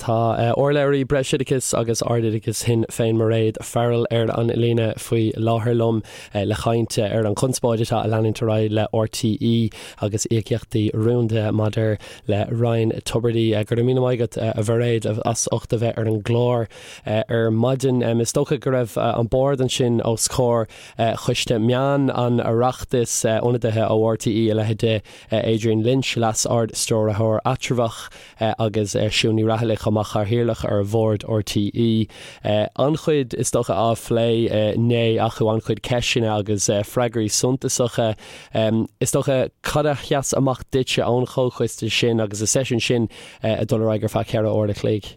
Tá urlabhraí Breisoideachais agus Ardoideachais Shinn Féin Mairéad Farrell ar an líne faoi láthair liom le caint ar an chonspóid atá ag leanúint ar aghaidh le RTÉ agus íocaíochtaí rúnda maidir le Ryan Tubridy. Go raibh míle maith agat a Mhairéad as ucht a bheith ar an gclár ar maidin. Is dócha go raibh an bord ansin os comhair Choiste Meán an Oireachtais, ionadaithe ó RTÉ a leithéid de Adrian Lynch, Leas-Ard-Stiúrthóir Eatramhach, agus Siún Ní Raghallaigh chomh maith, Cathaoirleach ar Bhord RTÉ. An-chuid is dócha á phlé inné acu, an-chuid ceisteanna agus freagraí suntasacha. Is dócha, cad a sheas amach duitse ón chomhchoiste sin agus an seisiún sin ag dul ar aghaidh ar feadh cheithre uair a chloig?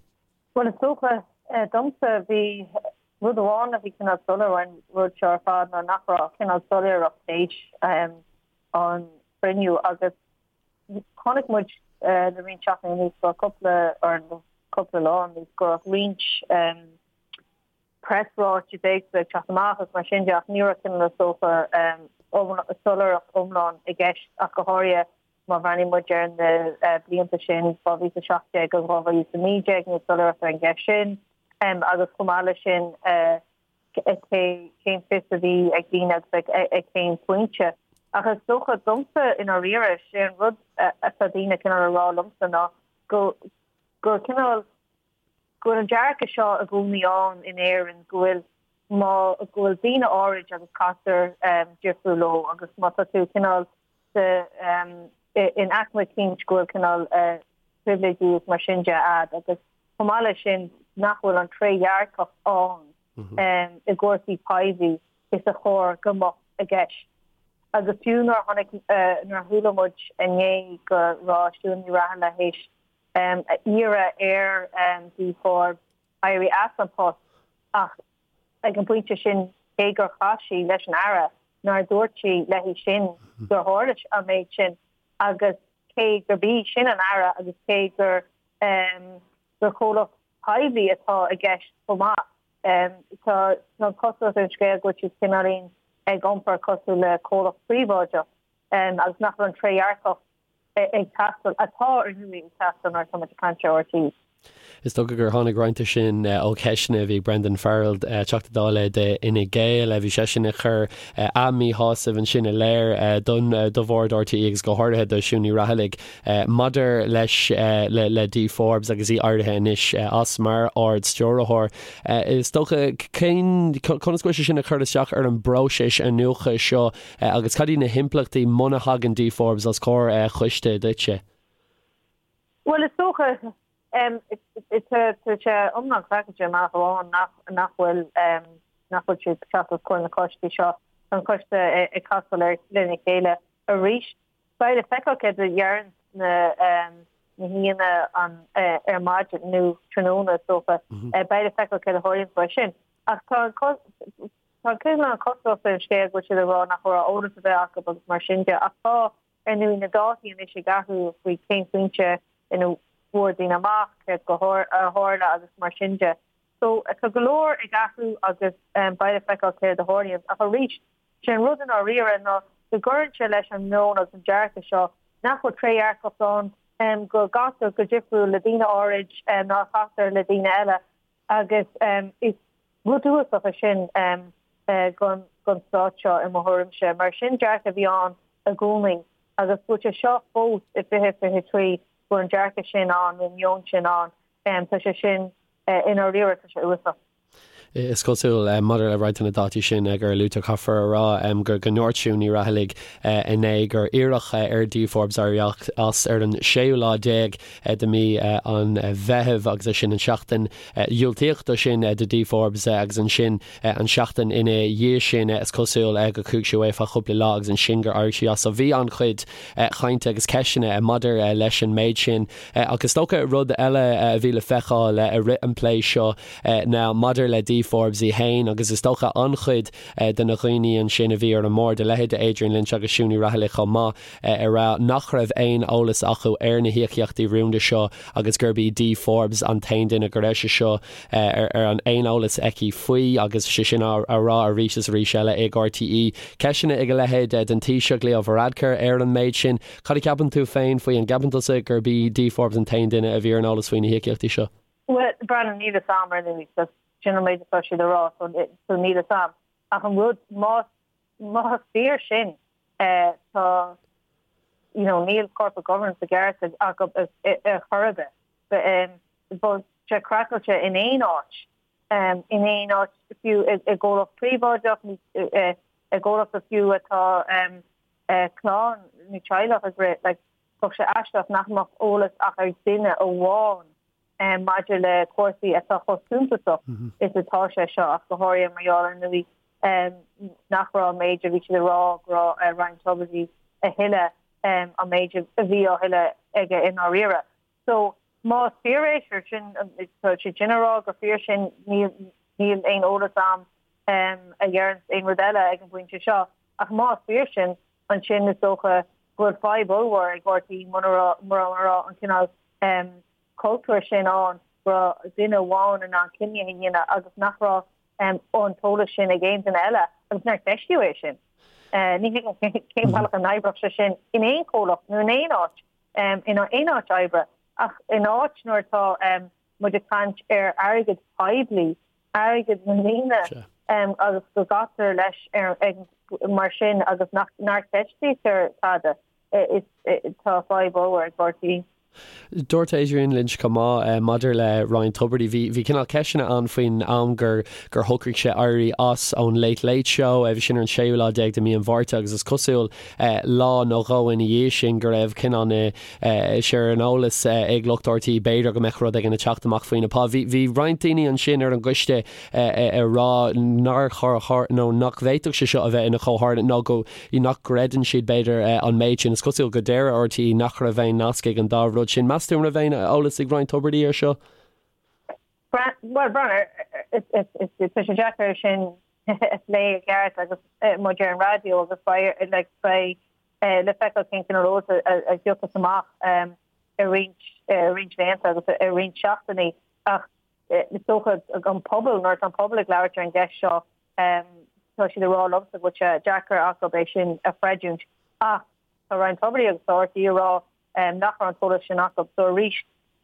Bhuel, is dócha, domsa, bhí rud amháin a bhí cineál soiléir ón rud seo ar fad ná nach raibh cineál soiléireacht théis an chruinniú agus Chonaic muid le roinnt seachtainí anuas go raibh cúpla, or cúpla lá anuas, go raibh roinnt preasráitis éagsúla ag teacht amach agus mar sin de ach ní raibh cineál is dócha soiléireacht iomlán i gceist ach go háirithe má bhreathnaíonn muid ar na blianta sin, 2017 agus 2019, níl soiléireacht ar an gceist sin agus chomh maith leis sin, cé cén fios a bhí ag daoine agus ag cén pointe. Ach is dócha domsa i ndáiríre, sé an rud atá daoine cineál a rá liomsa ná go gur cineál go bhfuil an dearcadh seo i gcónaí ann in Éirinn go bhfuil má go bhfuil daoine áirid agus caitear difriúil leo agus má tá tú cineál sa in aicme eicínt go bhfuil cineál pribhléidí is mar sin de a'd agus chomh maith leis sin nach bhfuil an trédhearcacht ann i gcúrsaí poiblí is a chóir go mbeadh i gceist. Agus fiú nuair a chonaic, nuair a chuala muid inné go raibh Siún Ní Raghallaigh théis iarraidh ar Dee Forbes éirí as an post ach ag an bpointe sin cé gur chas sí leis an Aire nár dúirt sí léi sin gur tharla an méid sin agus cé gurb í sin an Aire agus cé gur gur comhlacht poiblí atá i gceist chomh maith. Tá an chosúlacht ar an scéal go bhfuil siad cineáilín ag iompar cosúil le comhlacht príobháideach agus nach bhfuil an trédhearcacht ag teastáil, atá ar ndóigh ag teastáil nuair atá muid ag caint ar RTÉ. Is dócha gur tháinig roinnt de sin ó cheisteanna a bhí ag Brendan Farrell, Teachta Dála d'Fhine Gael. Bhí seisean ag cur a mhíshásamh ansin i léir don do bhord RTÉ agus go háirithe do Siún Ní Raghallaigh maidir leis le Dee Forbes agus í éirithe anois as mar Ard-Stiúrthóir. Is dócha cén conas go bhfuil sé sin ag cur isteach ar an bpróiseas iniúchadh seo agus cad iad na himpleachtaí muna thagann Dee Forbes os comhair choiste duitse? Bhuel, is dócha, tá sé iomlán craiceáilte i mbealach amháin nach bhfuil, nach bhfuil siad ag teacht os comhair na coistí seo. Tá an coiste ag casáil lena chéile arís. Beidh le feiceáil céard a deireann na haíonna ar maidin nó tráthnóna is dócha. Beidh le feiceáil céard a tharlaíonn faoi sin. Ach tá an tá cineál an chosúlacht ar an scéal go bhfuil siad ag rá nach raibh eolas ar bith acu agus mar sin de. Ach tá Ar ndóigh, na dátaí anois ag athrú faoi cén pointe ina bhfuair daoine amach céard a tharla agus mar sin de. So, tá go leor ag athrú agus beidh le feiceáil céard a tharlaíonn. Ach arís, sé an rud i ndáiríre ná go gcuireann sé leis an meon agus an dearcadh seo nach bhfuil trédhearcacht ann, go gcaitear go difriúil le daoine áirid ná a chaitear le daoine eile agus is Rud uafásach é sin don stát seo i mo thuairimse, mar sin dearcadh a bhí ann i gcónaí agus go bhfuil sé seo fós i 2023 go bhfuil an dearcadh sin ann nó an meon sin ann, tá sé sin i ndáiríre, tá sé uafásach. Is cosúil, maidir le roinnt de na dátaí sin gur luaigh tú, caithfear a rá go ndúirt Siún Ní Raghallaigh inné gur iarradh ar Dee Forbes éirí as ar an séú lá déag de mhí an Mheithimh agus é sin an seachtain Dhiúltaíodh dó sin do Dee Forbes agus ansin an seachtain ina dhiaidh sin is cosúil go chuaigh sí away feadh cúpla lá agus ansin gur éirigh sí as. So bhí an-chuid chainte agus ceisteanna maidir leis an méid sin. Ach is dócha rud eile a bhí le feiceáil i rith an plé seo ná maidir le Dee Forbes í fhéin agus is dócha an-chuid de na dhaoine ansin a bhí ar an mbord, a leithéid de Adrian Lynch agus Siún Ní Raghallaigh chomh maith, ag rá nach raibh aon eolas acu ar na híocaíochtaí rúnda seo agus gurb í Dee Forbes an t-aon duine go raibh sé seo ar an aon eolas aici faoi agus sé sin á rá arís is arís eile ag RTÉ. Ceisteanna ag a leithéid den Taoiseach Leo Varadkar ar an méid sin. Cad a cheapann tú féin faoi? An gceapann tusa gurb í Dee Forbes an t-aon duine a bhí ar an eolas faoi na híocaíochtaí seo? Breandán, níl fhios a'm ar ndóigh, so sin an méid atá siad a rá, so níl fhios a'm. Ach an rud, más, más fíor sin, tá, you know, níl corporate governance i gceart acu ar chor ar bith. Bheadh sé craiceáilte in aon áit, in aon áit fiú i gcomhlacht príobháideach nó i gcomhlacht fiú atá clann nó teaghlach ag rith, like, bheadh sé aisteach nach mbeadh eolas ach ag duine amháin maidir le cúrsaí atá chomh suntasach is atá sé seo, ach go háirithe mar gheall ar ndóigh nach raibh an méid a bhí siad ag rá go raibh Ryan Tubridy a thuilleadh an méid a bhí á thuilleadh aige i ndáiríre. So, más fíor é, sure, sin, tá siad sin ag rá gur fíor sin, níl, níl aon eolas a'm a dheireanns aon rud eile ag an bpointe seo, ach más fíor sin, ansin is dócha go bhfuil fadhb ollmhór ag RTÉ muna raibh, mura raibh an cineál cultúr sin ann go raibh duine amháin in ann cinneadh a dhéanamh agus nach raibh an t-eolas sin ag aon duine eile agus nár ceistíodh é sin. Ní thuigim cén bealach a n-oibreodh sé sin in aon chomhlacht nó in aon áit, in aon áit oibre ach in áit nuair atá muid ag caint ar airgead poiblí, airgead na ndaoine agus go gcaitear leis mar sin agus nach gceistítear tada, tá fadhb ollmhór ag RTÉ. Dúirt Adrian Lynch chomh maith maidir le Ryan Tubridy, bhí bhí cineál ceisteanna ann faoin am gur gur shocraigh sé éirí as ón Late Late Show, bhí sin ar an séú lá déag de mhí an Mhárta agus is cosúil lá nó dhó ina dhiaidh sin go raibh cineál na sé ar an eolas ag lucht RTÉ b'fhéidir go mbeadh rud éigin ag teacht amach faoina phá. Bhí bhí roinnt daoine ansin ar an gcoiste ag rá nár chóir nó nach bhféadfadh sé seo a bheith ina chomhtharlúint nó go nach gcreideann siad, b'fhéidir, an méid sin. Is cosúil go deir RTÉ nach raibh aon nasc ag an dá rud sin. Meas tú an raibh aon eolas ag Ryan Tubridy air seo? Bhuel, Breandán, tá sé deacair sin a phlé i gceart agus muid ar an raidió agus beidh like, beidh le feiceáil cén cineál eolas a thiocfas amach i roinnt roinnt laethanta agus i roinnt seachtainí ach is dócha an pobal nuair atá an pobal ag labhairt ar an gceist seo Tá siad ag rá liomsa go bhfuil sé deacair acu é sin a chreidiúint ach tá Ryan Tubridy agus tá RTÉ ag rá nach raibh an t-eolas sin acu. So arís,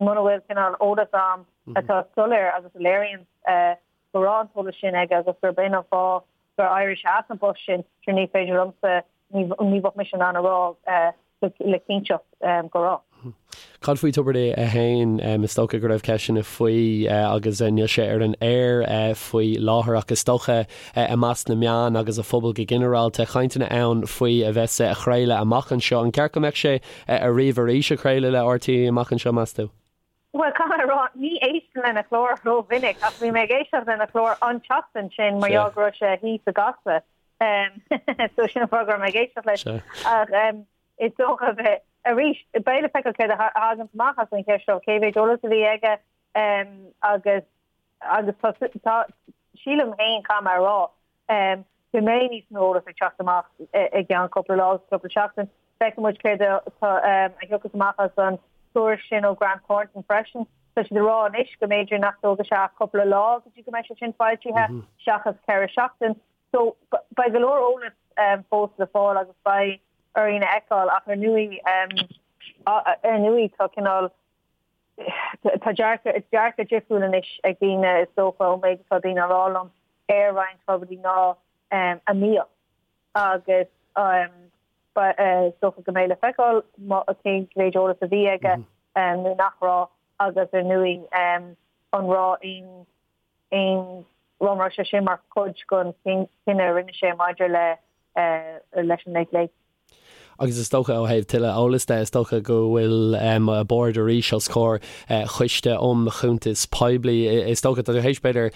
muna bhfuil cineál eolas a'm atá soiléir agus a léiríonn go raibh an t-eolas sin aige agus gurb in an fáth gur éirigh sé as an bpost sin, sure ní féidir liomsa, ní bheadh mise in ann a rá le cinnteacht go raibh. Cad faoi Tubridy é féin? Is dócha go raibh ceisteanna faoi agus níl sé ar an aer faoi láthair ach is dócha i measc na meán agus an phobail go ginearálta, cainteanna ann faoi a bheith á chraoladh amach anseo. An ceart go mbeadh sé ariamh arís ag craoladh le RTÉ amach anseo, meas tú? Bhuel, caithfidh mé a rá, ní éistim lena chlár rómhinic ach bhí mé ag éisteacht lena chlár an tseachtain sin mar gheall go raibh sé thíos i gCasla. So sin an fáth go raibh mé ag éisteacht leis. Ach is dócha bheith, arís, beidh le feiceáil céard a thagann amach as an cheist seo, cé mhéid eolas a bhí aige agus agus tá, tá, sílim féin, caithfidh mé a rá, go mbeidh níos mó eolas ag teacht amach i gceann cúpla lá agus cúpla seachtain. Feicfidh muid céard atá, a thiocfas amach as an tuairisc sin ó Grant Thornton freisin. Tá siad ag rá anois go mb'fhéidir nach dtógfaidh sé ach cúpla lá go dtí go mbeidh sé sin foilsithe seachas 4 seachtain. So, beidh go leor eolas fós le fáil agus beidh orainn a fheiceáil ach ar ndóigh, ar ndóigh tá cineál, tá dearcadh, dearcadh difriúil anois ag daoine is dócha ón méid atá daoine a rá liom ar Ryan Tubridy ná a mbíodh agus is dócha go mbeidh le feiceáil cén mhéid eolas a bhí aige nó nach raibh agus ar ndóigh an raibh aon aon an raibh sé sin mar chuid den chinneadh a rinne sé maidir le leis an Late Late. Agus is dócha ó thaobh tuilleadh eolais de, is dócha go bhfuil a bord arís os comhair Choiste um Chuntais Poiblí. Is dócha, tá tú théis b'fhéidir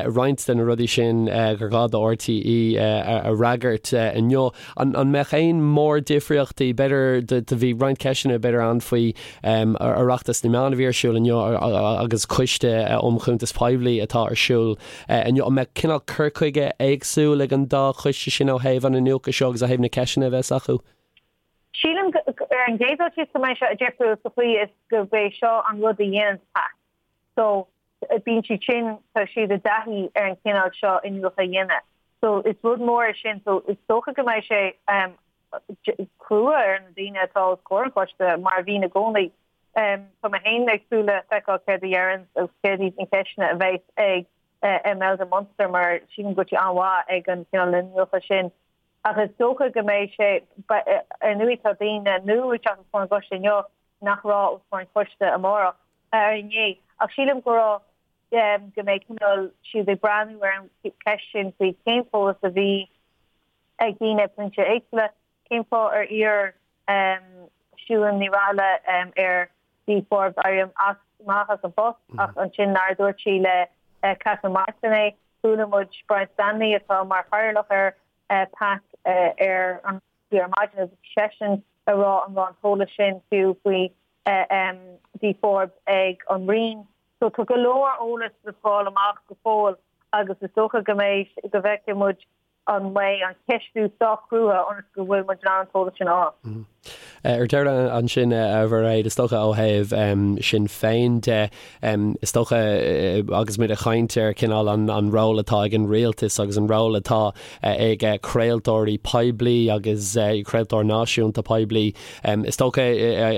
roinnt de na rudaí sin gur ghá do RTÉ a fhreagairt inniu. An mbeadh aon mórdhifríochtaí, b'fhéidir, do bhí roinnt ceisteanna b'fhéidir ann faoi Oireachtas na Meán a bhí ar siúl inniu agus Coiste um Chuntais Poiblí atá ar siúl inniu. An mbeadh cineál cur chuige éagsúil ag an dá choiste sin ó thaobh an iniúchadh seo agus ó thaobh na ceisteanna a bheas acu? Sílim ar an gcéad dul síos go mbeidh sé difriúil sa chaoi is gurb é seo an rud a dhéanann PAC. So bíonn siad sin, tá siad i dtaithí ar an chineál seo iniúchadh a dhéanamh. So is rud mór é sin. So is dócha go mbeidh sé crua ar na daoine atá os comhair an choiste, mar a bhíonn i gcónaí. Tá mé féin ag súil le feiceáil céard a dheireann agus céard iad na ceisteanna a bheas ag Imelda Munster mar sílim go bhfuil sí an-mhaith ag an cineál iniúchadh sin. Ach is dócha go mbeidh sé, ar ndóigh tá daoine nua ag teacht os comhair an choiste inniu nach raibh os comhair an choiste amárach, ar inné. Ach sílim go raibh, go mbeidh cineál siad ag breathnú ar an cheist sin faoi cén t-eolas a bhí ag daoine ag pointe éagsúla, cén fáth ar iarr Siún Ní Raghallaigh ar Dee Forbes éirí as amach as an bpost ach ansin nár dúirt sí le Catherine Martin é. Chuala muid Brian Stanley atá mar chathaoirleach ar PAC ar an ar maidin agus bhí seisean ag rá an raibh an t-eolas sin fiú faoi Dee Forbes ag an Roinn. So tá go leor eolas le fáil amach go fóill agus is dócha go mbeidh go bhfeicfidh muid an mbeidh an ceistiú sách crua ionas go bhfuil muid in ann an t-eolas sin a fháil. Ar deireadh ansin, a Mhairéad, is dócha ó thaobh Sinn Féin de, is dócha agus muid ag caint ar cineál an ról atá ag an rialtas agus an ról atá ag craoltóirí poiblí agus craoltóir náisiúnta poiblí, is dócha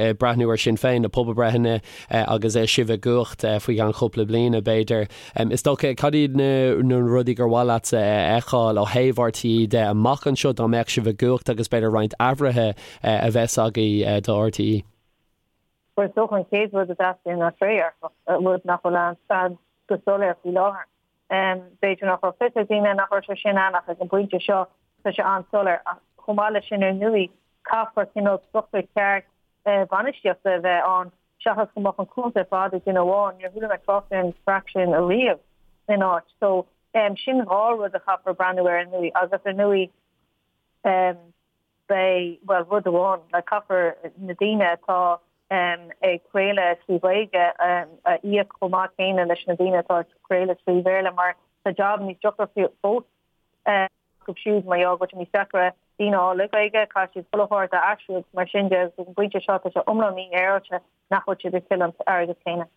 ag breathnú ar Sinn Féin, na pobalbreitheanna agus sibh i gcumhacht faoi cheann cúpla bliana, b'fhéidir. Is dócha, cad iad na rudaí gur mhaith leatsa a fheiceáil ó thaobh RTÉ de amach anseo dá mbeadh sibh i gcumhacht agus b'fhéidir roinnt athruithe a bheas agaibh do RTÉ? Bhuel, is dócha an chéad rud a dteastaíonn ná trédhearcacht, rud nach bhfuil ann go soiléir faoi láthair. B'fhéidir nach raibh fios ag daoine nach raibh sé sin ann ach ag an bpointe seo tá sé an-soiléir. Ach chomh maith leis sin ar ndóigh caithfear cineál struchtúr ceart bainistíochta a bheith ann seachas go mbeadh an cúntas ar fad ag duine amháin. Níor chuala mé trácht ar an chraic sin ariamh in áit. So sin dhá rud a chaithfear breathnú air ar ndóigh agus ar ndóigh beidh, bhuel rud amháin, like caithfear na daoine atá ag craoladh trí Ghaeilge a íoc chomh maith céanna leis na daoine atá ag craoladh trí Bhéarla mar tá jab níos deacra fós acu siúd mar gheall go bhfuil sé níos deacra daoine a fháil le Gaeilge, caithfidh siad chuile shórt a aistriú agus mar sin de agus ag an bpointe seo tá sé iomlán mífhéaráilte nach bhfuil siad ag tuilleamh an airgead céanna.